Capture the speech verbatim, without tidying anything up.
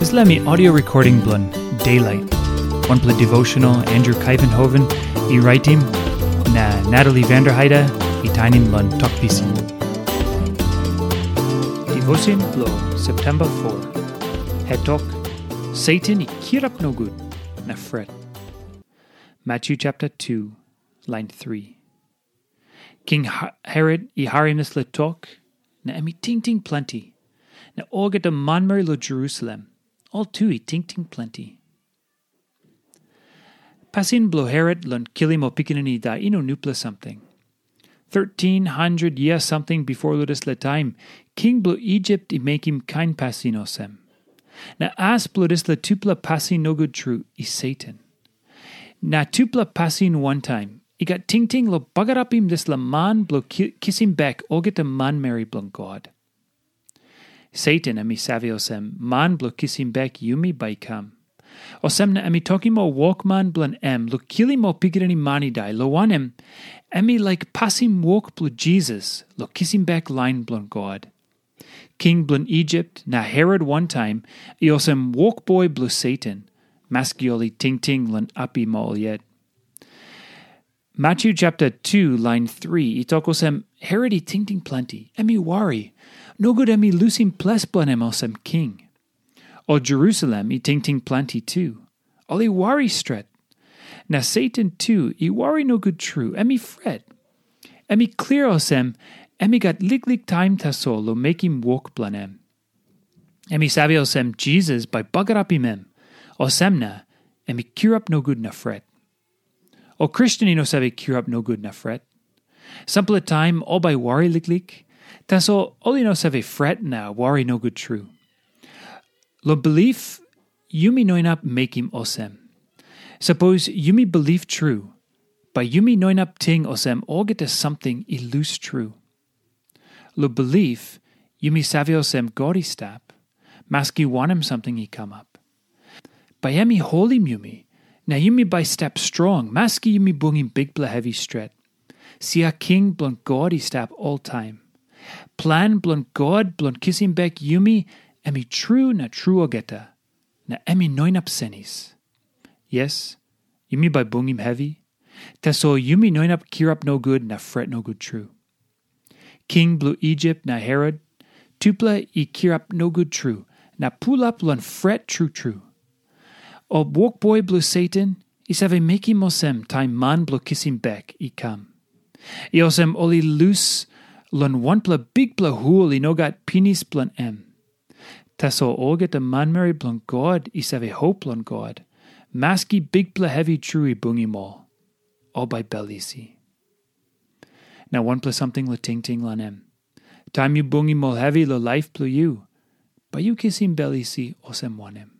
Dispela mi audio recording bilong Daylight. Wanpela devotional Andrew Kaivenhoven i raitim, na Natalie Vanderheide i tainim long Tok Pisin. Devotion bilong September four. Hetok, Satan i kirap nogut na fret. Matthew chapter two, line three. King Ha- Herod i harim dispela tok, na em i tingting planti. Na olgeta manmeri lo Jerusalem, ol tu i tingting planti. Pasin bilong Herod long kilim ol pikinini i dai i no nupela samting. Thirteen hundred years something before lo dispela taim, king bilong Egypt i mekim kain pasin olsem. Na as bilong dispela tupela pasin nogut tru i Satan. Na tupela pasin wantaim i gat tingting long bagarapim dispela man bilong ki- kisim bek olgeta manmeri bilong God. Satan em i save olsem man bilong kisim bek yumi bai i kam. Olsem na em i tokim ol wokman bilong em long kilim ol pikinini man i dai, long wanem, em i laik pasim wok bilong Jisas long kisim bek lain bilong God. King bilong Egypt na Herod wantaim i olsem wokboi bilong Satan, maski ol i tingting long apim ol yet. Matthew chapter two, line three, i tok olsem, Herod i tingting planti, em i wari. Nogut em i lusim ples bilong em olsem king. O Jerusalem i tingting planti tu. Ol i wari stret. Na Satan tu i wari nogut tru, em i fret. Em i klia olsem, em i gat liklik taim tasol long mekim wok bilong em. Em i save olsem Jisas bai bagarapim em. Olsem na, em i kirap nogut na fret. O Kristen i no save kirap nogut na fret. Sampela taim ol bai wari liklik, tasol ol i no save fret na wari nogut tru. Long bilip, yumi no inap mekim olsem. Sapos yumi bilip tru, bai yumi no inap ting olsem olgeta samting i lus tru. Long bilip, yumi save olsem God i stap, maski wanem samting i kamap. Bai em i holim yumi, na yumi bai stap strong, maski yumi bungim bikpela hevi stret. Sia king bilong God i stap oltaim. Plan bilong God bilong kisim bek yumi, em i tru na tru olgeta, na em i no inap senis. Yes, yumi bai bungim hevi, tasol yumi no inap kirap nogut na fret nogut tru. King bilong Egypt na Herod, tupela i kirap nogut tru na pulap long fret tru tru. Ol wokboi bilong Satan i save mekim olsem taim man bilong kisim bek i kam. I olsem ol i lus long wanpela bikpela hul i no gat pinis bilong em. Tasol olgeta manmeri bilong God i save hop long God, maski bikpela hevi tru i bungim ol, ol bai bel isi. Na wanpela samting long tingting long em. Taim yu bungim ol hevi long laip bilong yu, bai yu kisim bel isi olsem wanem?